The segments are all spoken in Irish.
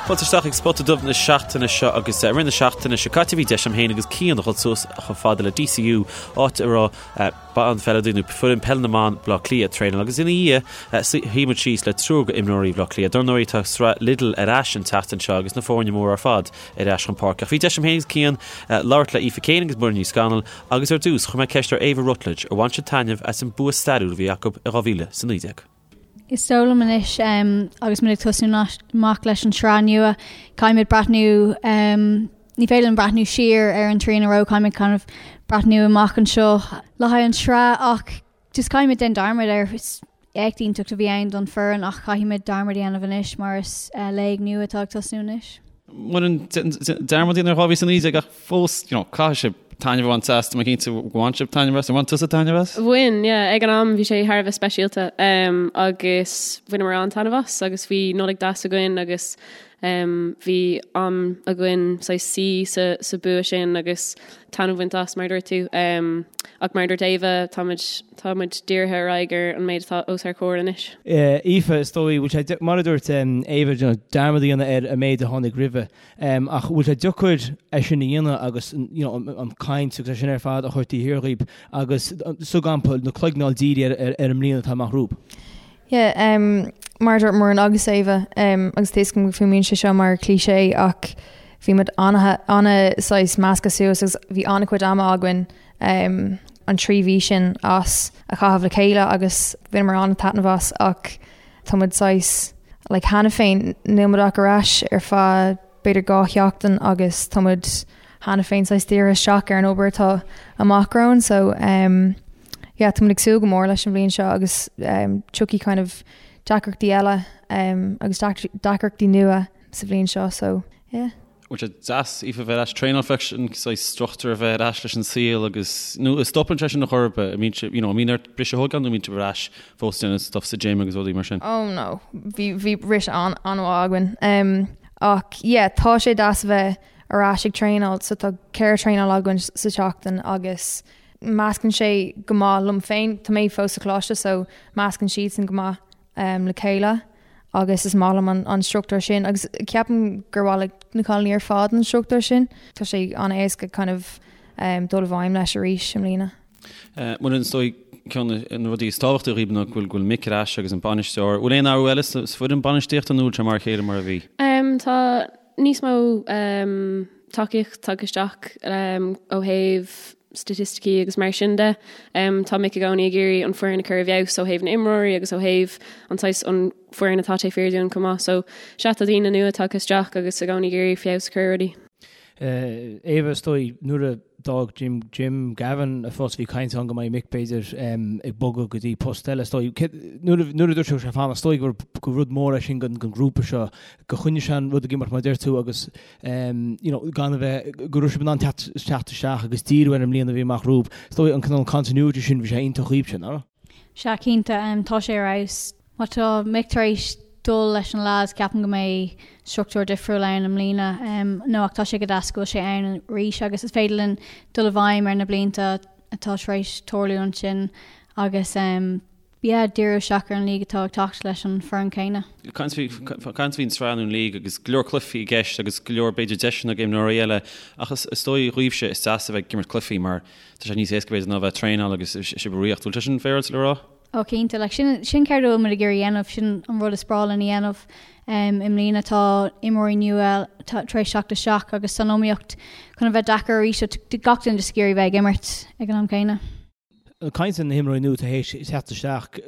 Fáilte isteach ag Spota Dubh na seachtaine seo agus i rith na seachtaine seo caite bhí deis agam féin agus Cian a dhul suas chomh fada le DCU áit a raibh banpheileadóirí nó foireann peile na mban Bhaile Átha Cliath ag traenáil agus ina dhiaidh shuigh muid síos le triúr go imreoirí Bhaile Átha Cliath. Dar ndóigh tá sraith Lidl ar ais an tseachtain seo agus na foirne móra ar fad ar ais chun páirce. Ach bhí deis agam féin agus Cian labhairt le Aoife Keane agus Muireann Ní Scanaill agus ar dtús chuir mé ceist ar Éabha Rutledge ar bhain siad taitneamh as an bua stairiúil a bhí acu i 2019. Is dóigh liom anois agus muid ag tosnú amach leis an sraith nua, caithfimid breathnú, ní féidir linn breathnú siar ar an trian a raibh, caithfimid kind of breathnú amach anseo le haghaidh an sraith ach just caithfimid déanamh dearmad air. Is éacht iontach a bhí ann don foireann ach caithfimid dearmad a dhéanamh anois mar is léig nua atá ag tosnú anois. Muireann, dearmad a dhéanamh ar 2019 ach fós, you know, caithfidh sibh taitneamh a bhaint as, tá mé cinnte go bhain sibh taitneamh as, ar bhain tusa taitneamh as? Bhain, yeah, ag an am bhí sé thar a bheith speisialta um, agus bhaineamar an-taitneamh as agus bhí Nollaig deas againn agus um, bhí am againn saghas suí sa, sa bua sin agus taitneamh a bhaint as mar a dúirt tú. Um, ach mar a dúirt Éabha, táimid, táimid dírithe ar aghaidh ar an méid atá os ár comhair anois. Aoife, is dóigh, bhfuil sé, mar a dúirt Éabha, you know, dearmad a dhéanamh ar an méid a tháinig roimhe. Ach bhfuil sé deacair é sin a dhéanamh agus you know an caint agus é sin ar fad a chur taobh thiar dhíbh agus sa gcampa na cloigne a fháil dírithe ar ar an mbliain atá amach romhaibh? Yeah, um, mar a dúirt Muireann agus Éabha, um, agus tá a fhios agam go fuaimníonn sé seo mar cliché ach bhí muid ana ana saghas measctha suas agus bhí an-chuid ama againn um, an 3 mhí sin as a chaitheamh le chéile agus bhaineamar an-taitneamh as ach Tá muid saghas like cheana féin, níl muid ach ar ais ar feadh b'fhéidir 2 sheachtain agus tá muid cheana féin saghas dírithe isteach ar an obair atá amach romhainn so um, yeah, tá muid ag súil go mór leis an bhliain seo agus um, tiocfaidh kind of deacrachtaí eile um, agus deacrachtaí nua sa bhliain seo so yeah. Bhfuil sé deas, Aoife, bheith ar ais traenáil freisin, saghas struchtúr a bheith ar ais leis an saol agus, nó an stopann sé sin ar chor ar bith, an mbíonn sibh, you know, an mbíonn ort briseadh a thógáil nó an mbíonn sibh ar ais fós déanamh stuff sa gym agus rudaí mar sin? Oh no, bhí, bhí briseadh an, an-mhaith againn. Um, ach yeah, tá sé deas a bheith ar ais ag traenáil, so tá ceithre traenáil againn sa tseachtain agus meascann sé go maith liom féin, tá mé fós sa choláiste so meascann siadsan go maith um, le chéile. agus is maith liom an struchtúr sin agus ceapaim gur mhaith le na cailíní ar fad an struchtúr sin. Tá sé an-éasca kind of dul i bhfeidhm leis arís i mbliana. Muireann, is dóigh ceann de na rudaí is tábhachtaí dhaoibh ná go bhfuil Mick ar ais agus an bainisteoir. Bhfuil aon athrú eile sa foireann bainistíochta nó bhfuil sé mar a chéile mar a bhí? Tá níos mó tacaíocht tagtha isteach ó thaobh staitisticí agus mar sin de. Tá Mick i gcónaí ag iarraidh an foireann a chur i bhfeabhas ó thaobh na imreoirí agus ó thaobh an saghas an foireann atá taobh thiar dúinn chomh maith. So sea tá daoine nua tagtha isteach agus i gcónaí ag iarraidh feabhas a chur ar rudaí. Éabha, is dóigh, nuair a d'fhág Jim, Jim Gavin a phost bhí caint ann go mbeidh Mick b'fhéidir ag bogadh go dtí post eile. Is dóigh, nuair a nuair a dúirt sé go raibh sé ag fanacht, is dóigh gur gur rud mór é sin don ghrúpa seo, go choinnigh sé an rud ag imeacht mar a deir tú agus you know, gan a bheith, go raibh sibh in ann teacht isteach agus díriú ar an mbliain a bhí amach romhaibh. Is dóigh an cineál continuity sin, bhí sé iontach dhaoibhse, nach raibh? Sea, cinnte, tá sé ar fheabhas. Má tá Mick tar éis dul leis na lads, ceapaim go mbeidh struchtúr difriúil ann i mbliana. No, ach tá sé go deas go bhfuil sé ann arís agus is féidir linn dul i bhfeidhm ar na blianta atá tar éis tarlú ansin agus yeah, díriú isteach ar an league atá ag teacht leis an foireann céanna. Caint faoin sraith nó an league agus go leor cluichí i gceist agus go leor b'fhéidir deiseanna ag imreoirí eile ach is dóigh dhaoibhse is deas a bheith ag imirt cluichí mar tá sé níos éasca b'fhéidir ná a bheith ag traenáil agus sibh ag ritheacht. Bhfuil sé sin féaráilte le rá? Ó cinnte, like sin sin céard a bhfuil muid ag iarraidh a dhéanamh, sin an rud is breá linn a dhéanamh. Um, i mbliana tá imreoirí nua tar éis teacht isteach agus tá an iomaíocht chun a bheith deacair arís so gach duine just ag iarraidh bheith ag imirt ag an am céanna. Ag caint ar na himreoirí nua atá théis teacht isteach,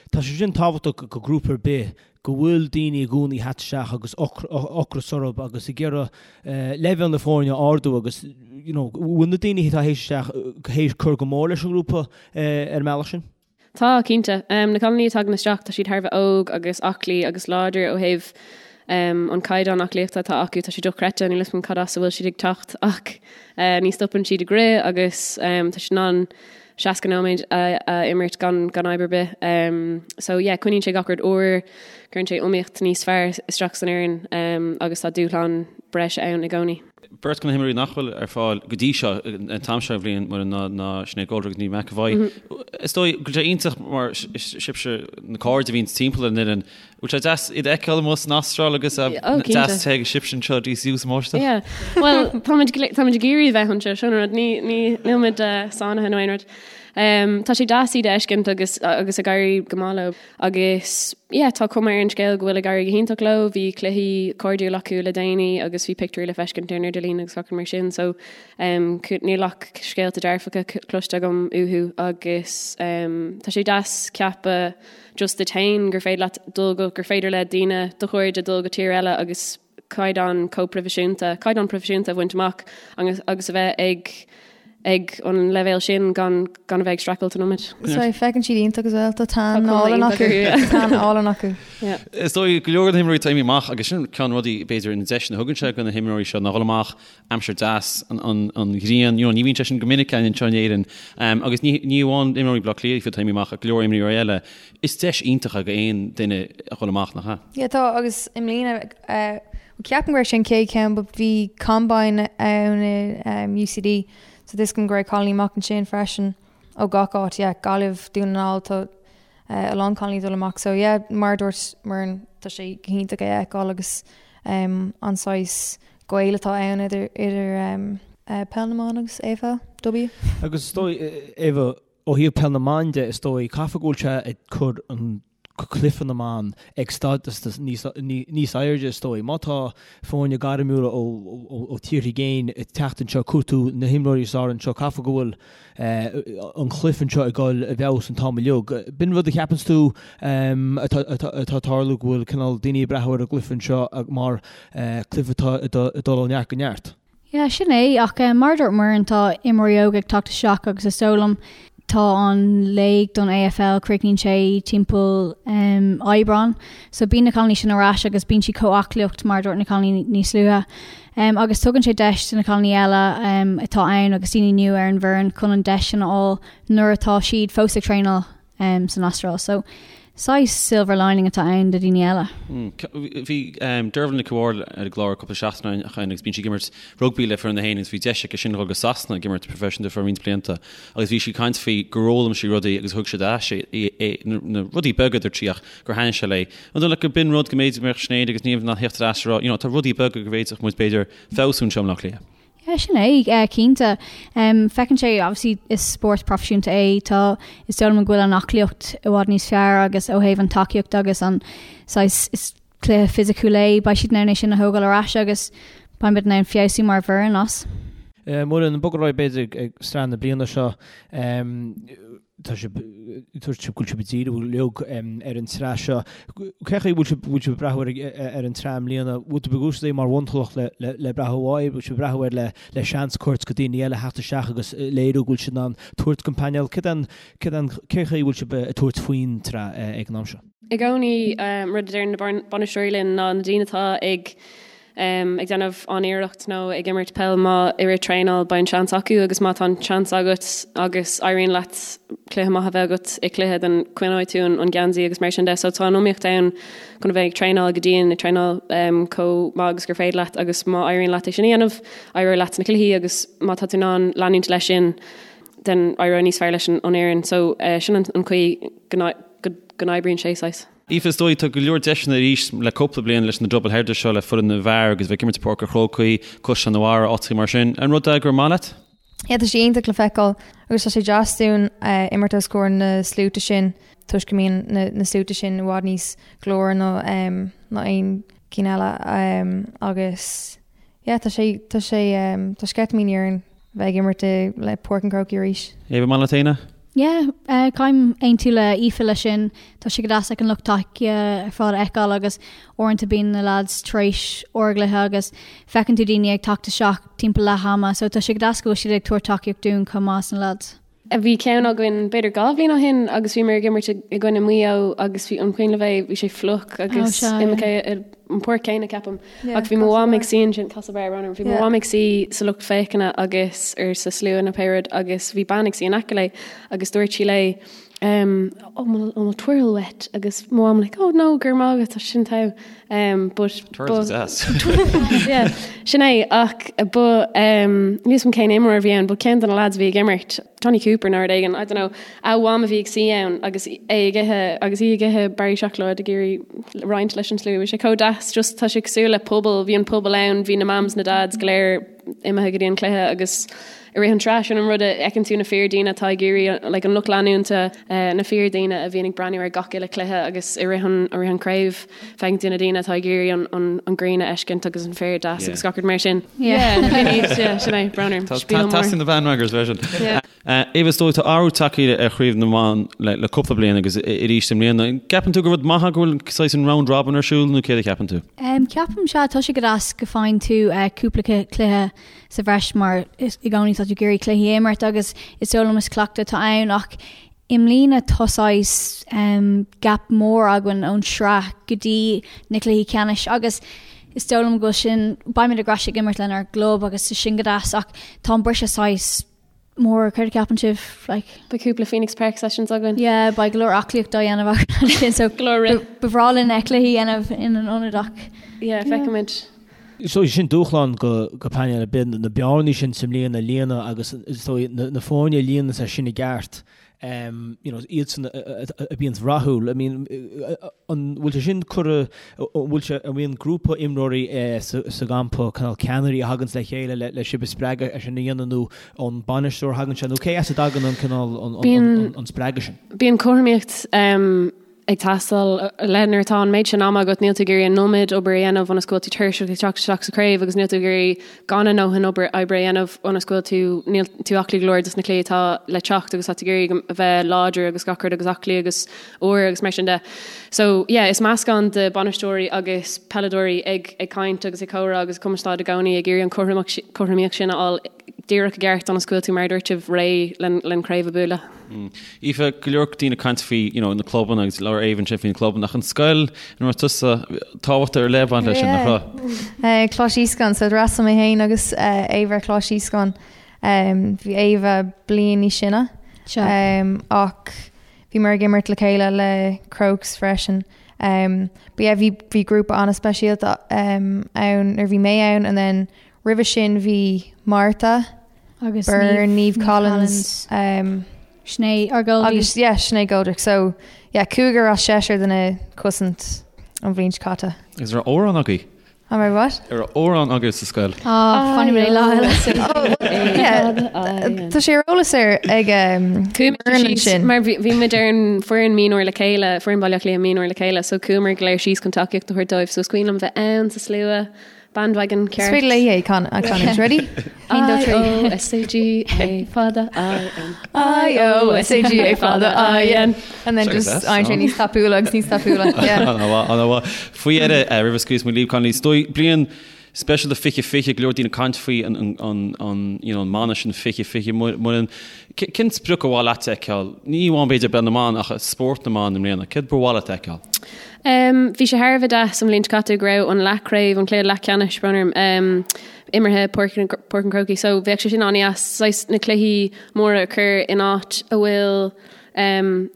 tá sé sin tábhachtach do ghrúpa ar bith, go bhfuil daoine i gcónaí ag teacht isteach agus ocras orthu agus ag iarraidh leibhéal na foirne a ardú agus you know bhfuil na daoine atá théis isteach théis cur go mór leis an ngrúpa ar an mbealach sin? Tá, cinnte. Na cailíní a tagann isteach, tá siad thar a bheith óg agus aclaí agus láidir ó thaobh an caighdeán aclaíochta atá acu, tá sé dochreidte, níl 'fhios agam cad as a bhfuil siad ag teacht ach ní stopann siad ag rith agus tá siad in ann 60 nóiméad a imirt gan gan fhadhb ar bith. So yeah, coinníonn sé gach rud úr, cuireann sé iomaíocht níos fearr isteach san fhoireann agus tá dúshlán. breise ann i gcónaí. Beirt de na himreoirí nach bhfuil ar fáil go dtí seo, an t-am seo den bhliain, Muireann, ná ná Sinéad Goldrick agus Niamh McEvoy. Is dóigh go bhfuil sé iontach mar sibhse na cairde a bhíonn timpeall ar an fhoireann. Bhfuil sé deas iad a fheiceáil amuigh san Astráil agus deas te ag sibhse anseo DCU sa mbáisteach? Yeah. Bhuel, táimid táimid ag iarraidh bheith anseo, sin an rud, ní ní níl muid sáinnithe nó aon rud. Tá sé deas iad a fheiscint agus agus ag éirí go maith leo. Agus yeah, tá cuma ar an scéal go bhfuil ag éirí go hiontach leo, bhí cluichí cairdiúil acu le déanaí agus bhí pictiúirí le feiscint ar an idirlíon agus gach rud mar sin so um, níl ach scéalta dearfacha cloiste agam uathu agus um, tá sé deas ceapadh just duit féin gur féidir leat dul go, gur féidir le daoine do chairde dul go tír eile agus caighdeán chomh proifisiúnta, caighdeán proifisiúnta a bhaint amach agus agus a bheith ag ag an leibhéal sin gan gan a bheith ag streachailt an iomad. So feiceann siad iontach as well, tá tan álainn acu. Tá tan álainn acu. Is dóigh go leor de na himreoirí atá imithe amach agus sin ceann rudaí b'fhéidir na deiseanna a thugann sé do na himreoirí seo ná dhul amach aimsir deas an an an ghrian you know ní bhíonn sé sin go minic againn anseo in Éirinn agus ní ní amháin imreoirí Bhaile Átha Cliath atá imithe amach ach go leor imreoirí eile Is deis iontach é d'aon duine a dhul amach, nach ea? Yeah, tá, agus i mbliana, eh, ceapaim go raibh sé an chéad cheann, but bhí combine ann i um, UCD, so tá a fhios agam go raibh cailíní amach ansin freisin ó gach áit, yeah, Gaillimh, Dún na nGall, tá eh, a lán cailíní dul amach, so yeah, mar a dúirt Muireann, tá sé go hiontach é a fheiceáil agus um, an saghas gaol atá ann idir, idir um, eh, peil na mban agus AFLW. Agus is dóigh, Eva, Ó thaobh peil na mban de, is dóigh, caithfidh go bhfuil sé ag cur an cluiche na mban ag stádas níos airde, is dóigh. Má tá foirne gairmiúla ó tíortha i gcéin ag teacht anseo, ag cuartú na himreoirí is fearr anseo, caithfidh go bhfuil an cluiche anseo ag dul i bhfeabhas an t-am uilig. B'in rud a cheapanns tú atá ag tarlú, go bhfuil cineál daoine ag breathnú ar an gcluiche anseo mar cluiche atá ag dul ó neart go neart? Yeah, sin é, ach mar a dúirt Muireann, tá imreoirí óga ag teacht isteach agus is dóigh liom tá an léig don AFL, críochnaíonn sé timpeall Aibreán, so bíonn na cailíní sin ar ais agus bíonn siad chomh aclaíocht mar a dúirt na cailíní níos luaithe. Agus tugann sé deis do na cailíní eile atá ann agus daoine nua ar an bhfoireann chun an deis sin a fháil nuair atá siad fós ag traenáil. san Astráil. So, saghas silver lining atá ann do dhaoine eile. Bhí Dervla Nic Mháil ar an gclár cúpla seachtain ó shin agus bíonn sí ag imirt rugbaí le foireann na hÉireann agus bhí deis aici sin dhul go Sasana ag imirt proifisiúnta for roinnt blianta agus bhí sí ag caint faoi gur fhoghlaim sí rudaí agus thug siad ar ais é na rudaí beaga a dúirt sí ach gur thaitnigh sé léi. An dóigh leat gur b'in rud go mb'fhéidir go mbeadh Sinéad agus Niamh in ann theacht ar ais a rá you know tá rudaí beaga go bhféadfadh muid b'fhéidir feabhsú anseo i mBleá Cliath. Yeah, sin é, cinnte. Feiceann sé, obviously, is spórt proifisiúnta é, tá, is dóigh liom go bhfuil an aclaíocht i bhfad níos fearr agus ó thaobh an tacaíocht agus an saghas, is cluiche fisiciúil é, beidh siad in ann é sin a thógáil ar ais agus beidh muid in ann feabhsú mar bhfoireann as. Muireann, ag bogadh ar aghaidh b'fhéidir ag sraith na bliana seo, Tá sibh, dúirt sibh go bhfuil sibh ag díriú uilig ar an tsraith seo. Cén chaoi a bhfuil sibh, bhfuil sibh ag breathnú ar, ar an tsraith i mbliana? Bhfuil tú ag úsáid é mar bhunchloch le, le, le breathnú uaidh? Bhfuil sibh ag breathnú air le, le seans a thabhairt do daoine eile theacht isteach agus léiriú go bhfuil siad in ann tabhairt don phainéal? Cén, cén, cén chaoi a bhfuil sibh ag tabhairt faoin tsraith ag an am seo? I gcónaí, rud a deireann na bainisteoirí linn ná na daoine atá ag ag déanamh an-iarracht nó ag imirt peil má i rith traenáil beidh an seans acu agus má tá an seans agat agus éiríonn leat cluiche maith a bheith agat i cluiche then coinneoidh tú an geansaí agus mar sin de so tá an iomaíocht ann chun a bheith ag traenáil go dian ag traenáil chomh maith agus gur féidir leat agus má éiríonn leat é sin a dhéanamh éireoidh leat sna cluichí agus má tá tú in ann leanúint leis sin then éireoidh níos fearr leis an fhoireann so sin an chaoi go n-oibríonn sé saghas. Aoife, is dóigh, tá go leor deiseanna arís le cúpla bliain leis na double headers seo le foireann na bhfear agus bheith ag imirt i Páirc an Chrócaigh, Caisleán an Bharraigh, áiteacha mar sin. An rud é gur maith leat? Yeah, tá sé iontach le feiceáil agus tá sé deas dúinn imirt os comhair na sluaite sin toisc go mbíonn na sluaite sin i bhfad níos glóraí ná ná aon cinn eile agus Yeah, tá sé, tá sé, tá sceitimíní orainn bheith ag imirt i, le Páirc an Chrócaigh arís. Éabha, maith leat féin é? Yeah, caithim aontú le Aoife leis sin. Tá sé go deas like an lucht tacaíochta ar fad a fheiceáil agus uaireanta bíonn na lads tar éis ár gcluiche agus feiceann tú daoine ag teacht isteach timpeall leath ama so tá sé go deas go bhfuil siad ag tabhairt tacaíocht dúinn chomh maith sna lads. Bhí ceann againn b'fhéidir 2 bhliain ó shin agus bhíomar ag imirt i gcoinne Maigh Eo agus bhí an cuimhin libh é, bhí sé fliuch agus imeacht. an pháirc céanna ceapaim. Ach bhí mo mham ag suí ansin, Castlebar, brón orm, bhí mo mham ag suí sa lucht féachana agus ar sa slua nó pé rud agus bhí bean ag suí in aice léi agus dúirt sí léi um, oh, an bhfuil twirl uait agus mo mham like, oh no, go raibh maith agat, tá sin togha. Um, but Twirls is deas. yeah, sin é ach ba um, níl a fhios agam cén imreoir a bhí ann, but ceann de na lads a bhí ag imirt, Johnny Cooper nó rud éigin, I don't know, a mham a bhí ag suí ann agus é ag ithe agus í ag ithe barraí seacláid ag iarraidh roinnt leis an slua. Bhí sé chomh deas, just tá sé cosúil le pobal, bhí an pobal ann, bhí na mams, na dads go léir imithe go dtí an cluiche agus i rith an tsraith sin an rud a fheiceann tú na fíordhaoine atá ag iarraidh like an lucht leanúnta, na fíordhaoine a bhíonn ag breathnú ar gach uile cluiche agus i rith an i rith an craobh feiceann tú na daoine atá ag iarraidh an an an ghrian a fheiscint agus an féar deas agus gach rud mar sin. Yeah, yeah, sin é, brón orm. Tá teastaíonn na bandwagons freisin. Éabha, is dóigh, tá athrú tagtha ar Chraobh na mBan le cúpla bliain agus arís i mbliana. An gceapann tú gur rud maith é go bhfuil saghas an round robin ar siúl nó céard a cheapann tú? Ceapaim sea, tá sé go deas go faigheann tú cúpla cluiche sa bhreis mar i gcónaí tá tú ag iarraidh cluichí a imirt agus is dóigh liom is cleachtadh atá ann ach i mbliana tá saghas gap mór againn ón sraith go dtí na cluichí ceannais agus is dóigh liom go bhfuil sin, beimid ar ais ag imirt lenár gclub agus tá sin go deas ach tá an briseadh saghas mór, céard a cheapann sibh? Like. Beidh cúpla Phoenix Park sessions againn. Yeah, beidh go leor aclaíocht á dhéanamh againn ansin so Go leor rith. ba bhreá linn cluichí a dhéanamh ina n-ionad ach Yeah, feicfimid. So sin dúshlán go go painéal ar bith, na bearnaí sin sa mbliain a líonadh agus is dóigh na foirne a líonann é sin i gceart you know, iadsan a bhíonns rathúil. I mean, an bhfuil sé sin curtha, an bhfuil sé, an mbíonn grúpa imreoirí sa gcampa, cineál ceannairí a thaganns le chéile le sibh a spreagadh é sin a dhéanamh nó ón bainisteoir a thagann sé nó cé as a dtagann an cineál, an spreagadh sin? Bíonn cothromaíocht ag teastáil le nuair atá an méid sin ama agat, níl tú ag iarraidh an iomad obair a dhéanamh ionas go bhfuil tú tuirseach ag teacht isteach sa chraobh agus níl tú ag iarraidh gan a ndóthain obair oibre a dhéanamh ionas go bhfuil tú, níl tú aclaí go leor dos na cluichí atá le teacht agus tá tú ag iarraidh a bheith láidir agus gach rud agus aclaí agus úr agus mar sin de. So yeah, is meascán de bainisteoirí agus peileadóirí ag ag caint agus ag comhrá agus ag cumarsáid i gcónaí ag iarraidh an cothromaíocht sin a fháil díreach i gceart ionas go bhfuil tú mar a dúirt sibh réidh len craobh a bualadh. Aoife, go leor daoine ag caint faoi you know, na clubanna agus labhair Éabha ansin faoi na clubanna ach an scoil ina raibh tusa tábhacht ar leith ag baint leis sin, nach raibh? Coláiste Íoscáin, so d'fhreastail mé féin agus Éabha ar Choláiste Íoscáin. Bhí Éabha bliain níos sine ach bhíomar ag imirt le chéile le Crokes freisin. But yeah, bhí bhí grúpa an-speisialta ann nuair bhí mé ann and then roimhe sin bhí Martha, Agus Byrne, Niamh Collins, Sinéad, ár goalie. Agus yeah, Sinéad Goldrick. So yeah, cúigear as seisear de na cosaint an bhliain seo caite. Is raibh amhrán agaibh? An raibh what? An raibh amhrán agaibh sa scoil? Ah, fanfaidh mé lá eile. Yeah, tá sé ar eolas ar ag Chuamar síos, mar bhí muid ar an foireann mionúir le chéile, foireann Baile Átha Cliath mionúir le chéile, so chuamar go léir síos chun tacaíocht a thabhairt dóibh, so is cuimhin liom bheith ann sa slua. Bandwagon ceart. Is féidir léi é a chanúint. Ready? 1, 2, 3. I O S A G A fada I N. I O S A G A fada I N. And then just éiríonn sé níos tapúla agus níos tapúla. Yeah. Ana-mhaith. Faoi dheireadh, roimh a scaoilfeas muid libh, Connolly, is dóigh bliain speisialta 2020, go leor daoine ag caint faoi an you know an mana sin 2020 Muireann. Cén sprioc ba mhaith leat a fheiceáil? Ní amháin b'fhéidir i bpeil na mban ach i spórt na mban i mbliana. Céard ba mhaith leat a fheiceáil? Bhí sé thar a bheith deas an bhliain seo caite go raibh an leathchraobh, an cluiche leathcheannais, brón orm, imeartha i Páirc an Chrócaigh so bheadh sé sin an-deas, saghas na cluichí móra a chur in áit a bhfuil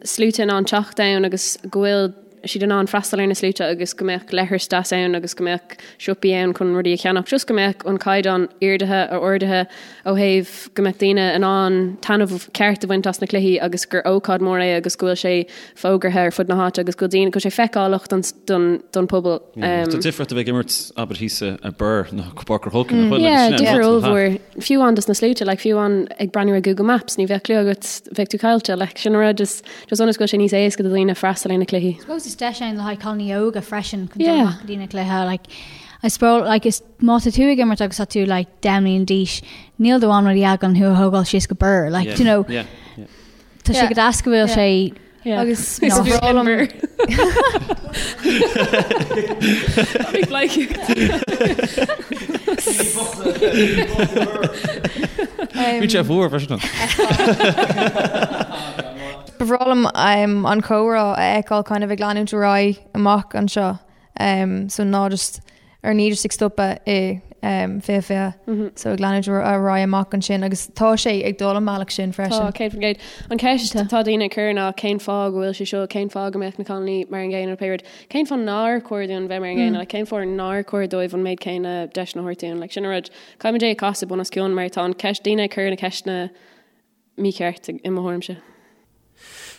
sluaite in ann teacht ann agus go bhfuil siad in ann freastal ar na sluaite agus go mbeadh leithris deas ann agus go mbeadh siopaí ann chun rudaí a cheannach, just go mbeadh an caighdeán ardaithe, ardaithe ó thaobh go mbeadh daoine in ann taitneamh ceart a bhaint as na cluichí agus gur ócáid mór é agus go bhfuil sé fógartha ar fud na háite agus go bhfuil daoine, go bhfuil sé feiceálach don, don, don pobal. Tá difríocht a bheith ag imirt abair thíos i Birr nó Páirc an Chrócaigh nach bhfuil? Yeah, difear ollmhór. Fiú amháin dos na sluaite, like fiú amháin ag breathnú ar Google Maps, ní bheadh clue agat, bheadh tú caillte, like sin an rud is just ionas go bhfuil sé níos éasca do dhaoine freastal ar na cluichí. I suppose is deis ann le haghaidh cailíní óga freisin chun dul amach go dtí na cluiche, like I suppose like is má tá tú ag imirt agus tá tú like 10 mbliana d'aois, níl do mham nó do dhaid chun thú a thógáil síos go Birr, like do you know, tá sé go deas go bhfuil sé Agus ba bhreá liom Bhí sé fuar freisin. Ba bhreá liom an comhrá a fheiceáil kind of ag leanúint ar aghaidh amach anseo. So ná just ar ní just ag stopadh i 2020 so ag leanúint ar aghaidh amach ansin agus tá sé ag dul an bealach sin freisin. Tá, 100%. An ceist atá daoine ag cur ná cén fáth go bhfuil sé seo, cén fáth go mbeadh na cailíní mar an gcéanna nó pé rud, cén fáth nár chóir dúinn bheith mar an gcéanna, like, cén fáth nár chóir dóibh an méid céanna deiseanna a thabhairt dúinn, like, sin an rud. Caithfimid é a chasadh bun os cionn mar tá an ceist, daoine ag cur na ceisteanna mícheart i mo thuairimse.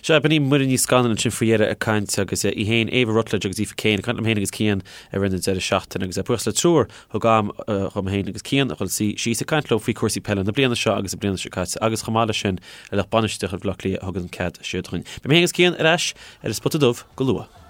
Sea, b'in í Muireann Ní Scanaill ansin faoi dheireadh ag caint agus í féin, Éabha Rutledge agus Aoife Kane ag caint liom féin agus Cian i rith na deireadh seachtaine agus buíochas le triúr thug am dhom féin agus Cian a dhul suí síos ag caint leo faoi chúrsaí peile na bliana seo agus na bliana seo caite agus chomh maith leis sin le lucht bainistíochta Bhaile Átha Cliath a thug an cead seo dúinn. Beidh mé féin agus Cian ar ais ar an Spota Dubh go luath.